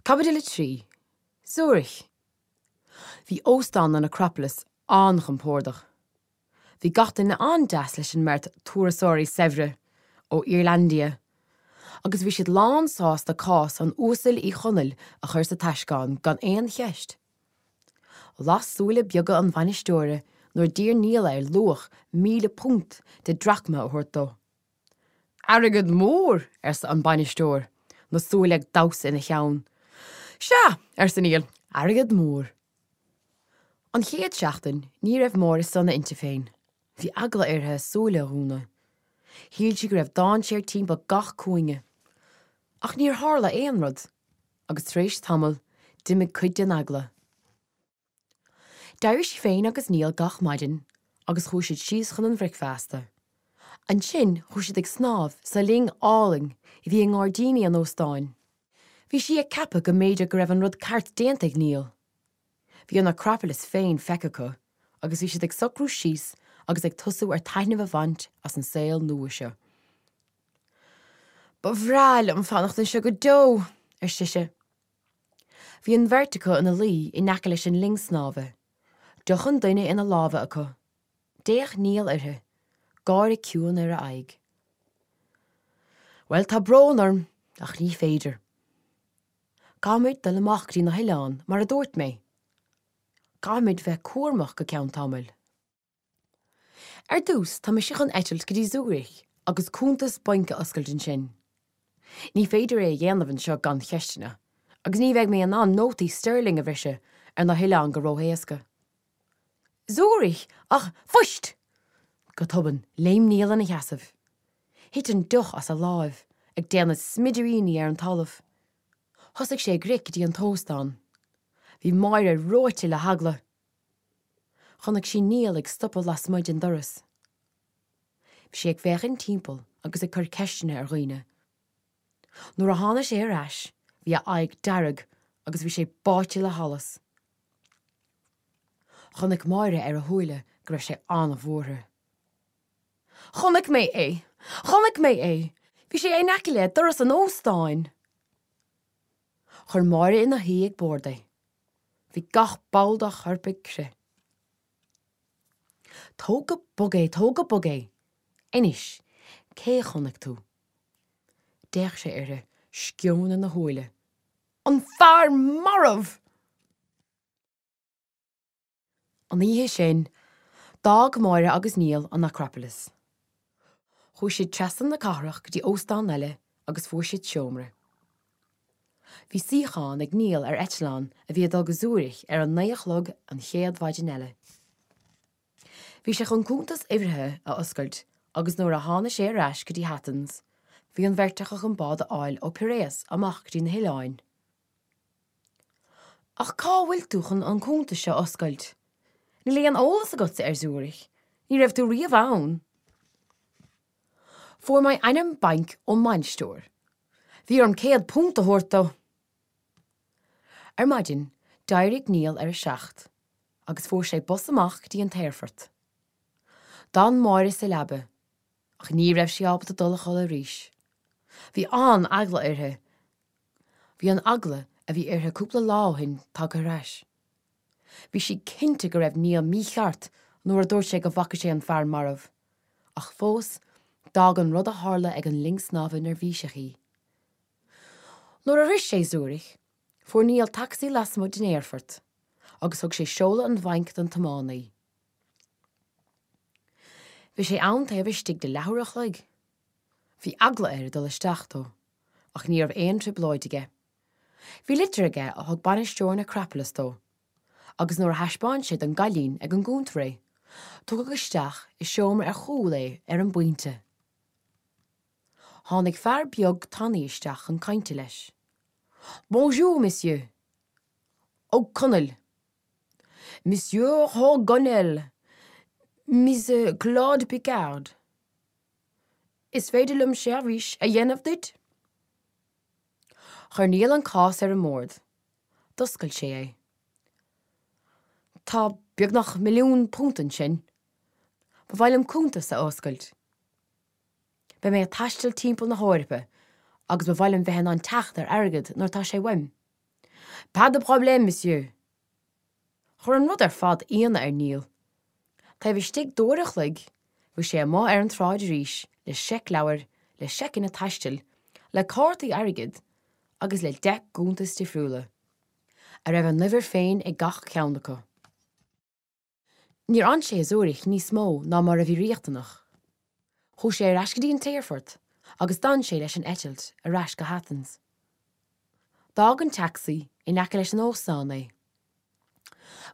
Caibidil 3, Zürich. Bhí óstán an Acropolis an-chompordach. Bhí gach duine an-deas leis an mbeirt turasóirí saibhre ó Irlandia agus bhí siad lán sásta cás an Uasail Uí Chonaill a chur sa taisceán gan aon cheist. Las súile beaga an bhainisteora nuair d'iarr Niall air luach £1,000 de drachma a thabhairt dó. Airgead mór! arsa an bainisteoir, na súile ag damhsa ina cheann. Sea, arsa Niall, airgead mór. An chéad seachtain, ní raibh Máire sona inti féin. Bhí eagla uirthi a súile a dhúnadh. Shíl sí go raibh dainséar timpeall gach cúinne. Ach níor tharla aon rud, agus tar éis tamaill, d'imigh cuid den eagla. D'éirigh sí féin agus Niall gach maidin agus chuaigh siad síos chun an bhricfeasta. Ansin chuaigh siad ag snámh sa linn álainn a bhí i ngairdíní an óstáin. Bhí sí ag ceapadh go mb'fhéidir go raibh an rud ceart déanta ag Niall. Bhí an Acropolis féin feicthe acu agus bhí siad ag socrú síos agus ag tosú ar taitneamh a bhaint as an saol nua seo. Ba bhreá liom fanacht anseo go deo, ar sise. Bhí an bheirt acu ina luí in aice leis an linn snámha, deoch an duine ina lámha acu. D'fhéach Niall uirthi, gáire ciúin ar a aghaidh. Bhuel, tá brón orm, ach ní féidir. Caithfimid dul amach go dtí na hoileáin, mar a dúirt mé. Caithfimid bheith cúramach go ceann tamaill. Ar dtús, tá mise chun eitilt go dtí Zürich agus cuntas bainc a oscailt ansin. Ní féidir é a dhéanamh anseo gan cheisteanna, agus ní bheidh mé in ann nótaí sterling a bhriseadh ar na hoileáin go ró-éasca. Zürich! Ach, fuist! Go tobann, léim Niall ina sheasamh. Thit an deoch as a láimh, ag déanamh smidiríní ar an talamh. Thosaigh sé ag rith go dtí an t-óstán. Bhí Máire reoite le heagla. Chonaic sí Niall ag stopadh lasmuigh den doras. Bhí sé ag féachaint timpeall agus ag cur ceisteanna ar dhaoine. Nuair a tháinig sé ar ais, bhí a aghaidh dearg agus bhí sé báite le hallas. Chonaic Máire ar a shúile go raibh sé an-bhuartha. Chonaic mé é! Chonaic mé é! Bhí sé in aice le doras an óstáin! Chuir Máire ina shuí ag bord é. Bhí gach ball dá chorp ag crith. Tóg go bog é, tóg go bog é! Anois, cé a chonaic tú? D'fhéach sé uirthi, sceon ina shúile. An fear marbh! An oíche sin, d'fhág Máire agus Niall an Acropolis. Chuaigh siad trasna na cathrach go dtí óstán eile agus fuair siad seomra. Bhí suíochán ag Niall ar eitleán a bhí ag dul go Zürich ar a naoi a chlog an chéad mhaidin eile. Bhí sé chun cuntas uimhrithe a oscailt agus nuair a tháinig sé ar ais go dtí Athens, bhí an bheirt acu chun bád a fháil ó Piraeus amach go dtí na hoileáin. Ach cá bhfuil tú chun an cuntas seo a oscailt? Níl aon eolas agatsa ar Zürich, ní raibh tú riamh ann. Fuair mé ainm bainc ón mbainisteoir. Bhí orm £100 a thabhairt dó. Ar maidin, d'éirigh Niall ar a 7 agus fuair sé bus amach go dtí an t-aerfort. D'fhan Máire sa leaba, ach ní raibh sí ábalta dul a chodladh arís. Bhí an-eagla uirthi Bhí an eagla a bhí uirthi cúpla lá ó shin tagtha ar ais. Bhí sí cinnte go raibh Niall mícheart nuair a dúirt sé go bhfaca sé an fear marbh, ach fós, d'fhág an rud a tharla ag an linn snámha neirbhíseach í. Nuair a shroich sé Zürich, fuair Niall tacsaí lasmuigh den aerfort agus thug sé seoladh an bhainc don tiománaí. Bhí sé ann taobh istigh de leathuair a chloig. Bhí eagla air dul isteach dó, ach ní raibh aon trioblóid aige. Bhí litir aige a thug bainisteoir an Acropolis dó, agus nuair a thaispeáin sé don gcailín ag an gcuntar é, tugadh isteach i seomra ar chúl é ar an bpointe. Tháinig fear beag tanaí isteach chun cainte leis. Bonjour, monsieur! Ó Conaill! Monsieur Ó Conaill! Mise Claude Picard! Is féidir liom seirbhís a dhéanamh duit? Chuir Niall an cás ar an mbord. D'oscail sé é. Tá beagnach £1,000,000 ansin. Ba mhaith liom cuntas a oscailt. Beidh mé ag taisteal timpeall na hEorpa agus ba mhaith liom bheith in ann teacht ar airgead nuair atá sé uaim. Pas de problème, monsieur! Chuir an rud ar fad ionadh ar Niall. Taobh istigh d'uair a chloig, bhí sé amuigh ar an tsráid arís le seicleabhair, le seiceanna taistil, le cártaí airgid agus le 10 gcuntas difriúla, a raibh a n-uimhir féin ag gach ceann acu. Níor fhan sé i Zürich níos mó ná mar a bhí riachtanach. Chuaigh sé ar ais go dtí an t-aerfort agus d'fhan sé leis an eitilt ar ais go hAthens. D'fhág an taxi in aice leis an óstán é.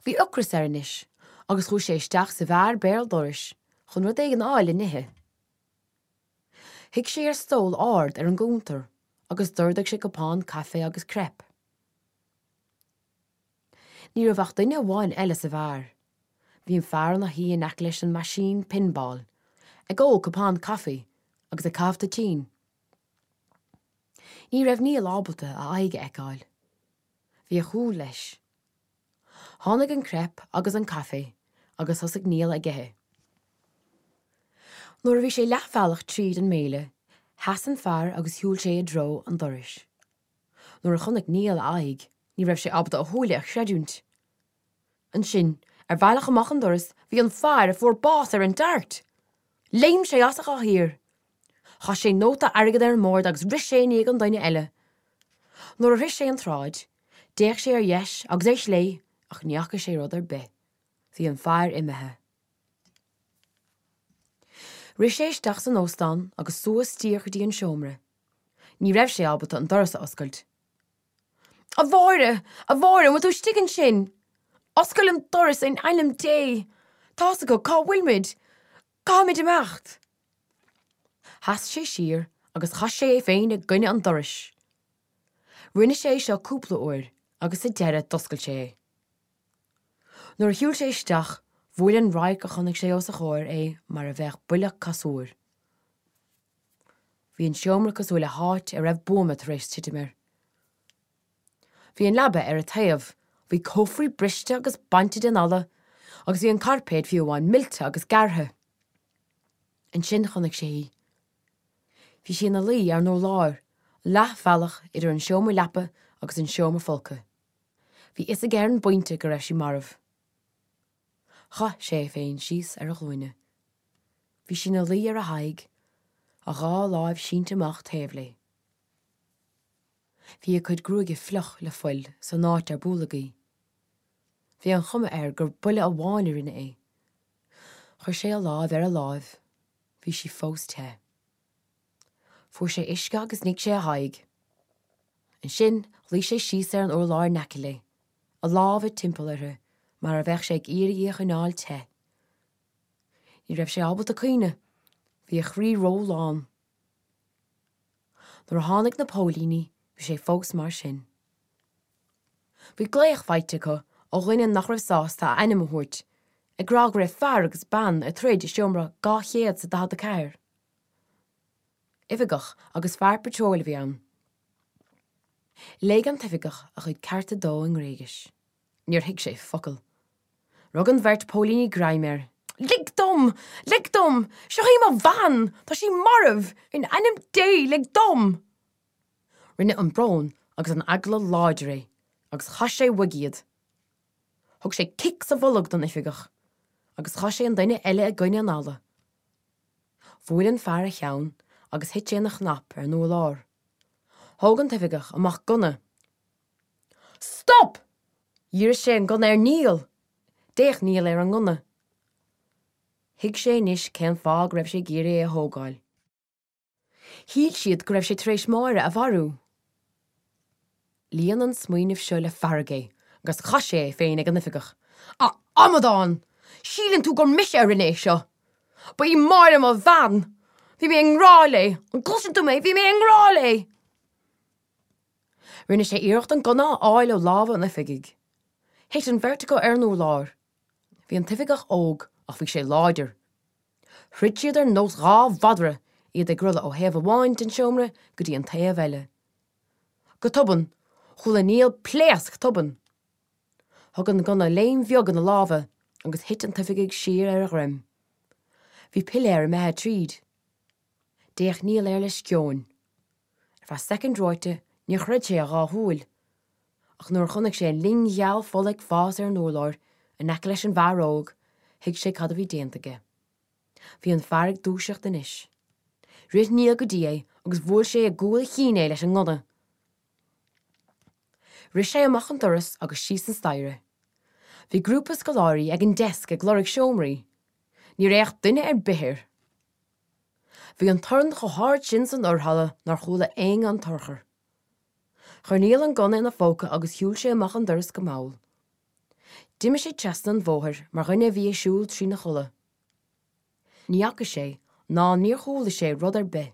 Bhí ocras air anois agus chuaigh sé isteach sa bheár béal dorais chun rud éigin a fháil le n-ithe. Shuigh sé ar stól ard ar an gcuntar agus d'ordaigh sé cupán caife agus crepe. Ní raibh ach duine amháin eile sa bheár. Bhí an fear ina shuí in aice leis an meaisín pinball, ag ól cupán caife agus ag caitheamh toitín. Ní raibh Niall ábalta a aghaidh a fheiceáil. Bhí a chúl leis. Tháinig an crepe agus an caife agus thosaigh Niall ag ithe. Nuair a bhí sé leathbhealach tríd an mbéile, sheas an fear agus shiúil sé i dtreo an dorais. Nuair a chonaic Niall a aghaidh, ní raibh sé ábalta a shúile a chreidiúint. Ansin, ar bhealach amach an doras, bhí an fear a fuair bás ar an DART! Léim sé as a chathaoir. Chaith sé nóta airgid ar an mbord agus rith sé i ndiaidh an duine eile. Nuair a shroich sé an tsráid, d'fhéach sé ar dheis agus ar chlé ach ní fhaca sé rud ar bith. Bhí an fear imithe. Rith sé isteach san óstán agus suas díreach go dtí an seomra. Ní raibh sé ábalta an doras a oscailt. A Mháire! A Mháire, an bhfuil tú istigh ansin? Oscail an doras in ainm Dé! Tá's acu cá bhfuil muid! Caithfimid imeacht! Sheas sé siar agus chaith sé é féin i gcoinne an dorais. Rinne sé é seo cúpla uair agus sa deireadh d'oscail sé é. Nuair a shiúil sé isteach, bhuail an radharc a chonaic sé os a chomhair é mar a bheadh buille casúir. Bhí an seomra cosúil le háit a raibh buama tar éis titim air. Bhí an leaba ar a taobh, bhí cófraí briste agus bainte den fhalla agus bhí an cairpéad fiú amháin millte agus gearrtha. Ansin chonaic sé í. Bhí sí ina luí ar an urlár, leathbhealach idir an seomra leapa agus an seomra folctha. Bhí fhios aige ar an bpointe go raibh sí marbh. Chaith sé é féin síos ar a ghlúine. Bhí sí ina luí ar a haghaidh, a dhá láimh sínte amach taobh léi. Bhí a cuid gruaige fliuch le fuil san áit ar bualadh í. Bhí an chuma air gur buille amháin a rinne é. Chuir sé a láimh ar a láimh, bhí sí fós te. Fuair sé uisce agus nigh sé a haghaidh. Ansin luigh sé síos ar an urlár in aice léi. a lámha timpeall uirthi mar a bheadh sé ag iarraidh í a choinneáil te. Ní raibh sé ábalta caoineadh, bhí a chroí ró-lán. Nuair a tháinig na póilíní bhí sé fós mar sin. Bhí glaoch faighte acu ó dhuine nach raibh sásta a ainm a thabhairt, ag rá go raibh fear agus bean ag troid i seomra 244. Oifigeach agus fear patróil a bhí ann. Léigh an t-oifigeach a chuid cearta dó i nGréigis. Níor thuig sé focal. Rug an bheirt póilíní greim air. Lig dom! Lig dom! Seo í mo bhean! Tá sí marbh! In ainm Dé, lig dom! Rinne an brón agus an eagla láidir é agus chaith sé uaidh iad. Thug sé cic sa bholg don oifigeach agus chaith sé an duine eile i gcoinne an fhalla. Bhuail an fear a cheann agus thit sé ina chnap ar an urlár. Thóg an t-oifigeach amach gunna. Stop! Dhírigh sé an gunna ar Niall! D'fhéach Niall ar an ngunna. Thuig sé anois cén fáth go raibh sé ag iarraidh é a thógáil. Shíl siad go raibh sé tar éis Máire a mharú. Líon an smaoineamh seo le fearg é agus chaith sé é féin ag an oifigeach. A amadán! Síleann tú gur mise a rinne é seo! Ba í Máire mo bhean! Bhí mé i ngrá léi! An gcloiseann tú mé? Bhí mé i ngrá léi! Rinne sé iarracht an gunna a fháil ó lámha an oifigigh. Thit an bheirt acu ar an urlár. Bhí an t-oifigeach óg ach bhí sé láidir. Throid siad ar nós dhá mhadra, iad ag rolladh ó thaobh amháin den seomra go dtí an taobh eile. Go tobann, chuala Niall pléasc tobann. Thug an gunna léim bheag ina lámha agus thit an t-oifigeach siar ar a dhroim. Bhí piléar imithe tríd. D'fhéach Niall air le sceoin. Ar feadh soicind reoite níor chreid sé a dhá shúil. Ach nuair a chonaic sé an linn gheal fola ag fás ar an urlár in aice leis an bhfear óg, thuig sé cad a bhí déanta aige. Bhí an fear ag dúiseacht anois. Rith Niall go dtí é agus bhuail sé i gcúl a chinn é leis an ngunna. Rith sé amach an doras agus síos an staighre. Bhí grúpa scoláirí ag an deasc ag lorg seomraí. Níor fhéach duine ar bith air. Bhí an torann chomh hard sin san fhorhalla nár chuala éinne an t-urchar. Chuir Niall an gunna ina phóca agus shiúil sé amach an doras go mall. D'imigh sé trasna an bhóthair mar dhuine a bhí ag siúl trína chodladh. Ní fhaca sé ná níor chuala sé rud ar bith.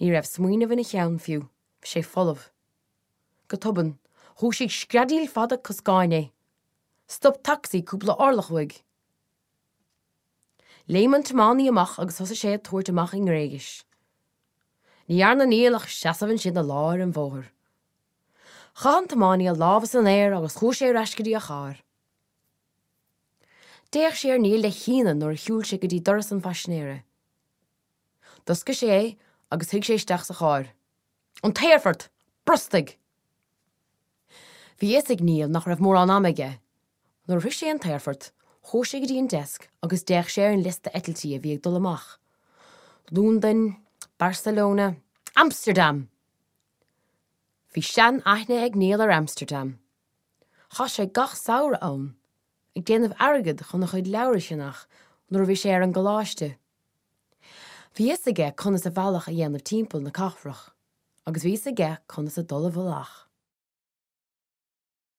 Ní raibh smaoineamh ina cheann fiú, bhí sé folamh. Go tobann, dhúisigh screadaíl fada coscáin é. Stop tacsaí cúpla orlach uaidh. Léim an tiománaí amach agus thosaigh sé ag tabhairt amach i nGréigis. Ní dhearna Niall ach seasamh ansin i lár an bhóthair. Chaith an tiománaí a lámha san aer agus chuaigh sé ar ais go dtí a charr. D'fhéach sé ar Niall le hionadh nuair a shiúil sé go dtí doras an phaisinéara. D'oscail sé é agus shuigh sé isteach sa charr. An t-aerfort! Brostaigh! Bhí a fhios ag Niall nach raibh mórán ama aige. Nuair a shroich sé an t-aerfort, chuaigh sé go dtí an deasc agus d'fhéach sé ar an liosta eitiltí a bhí ag dul amach. Londain, Barcelona, Amsterdam! Bhí sean-aithne ag Niall ar Amsterdam. Chaith sé gach samhradh ann, ag déanamh airgid chun a chuid leabhar a cheannach nuair a bhí sé ar an gcoláiste. Bhí a fhios aige conas a bhealach a dhéanamh timpeall na cathrach agus bhí a fhios aige conas a dul i bhfolach.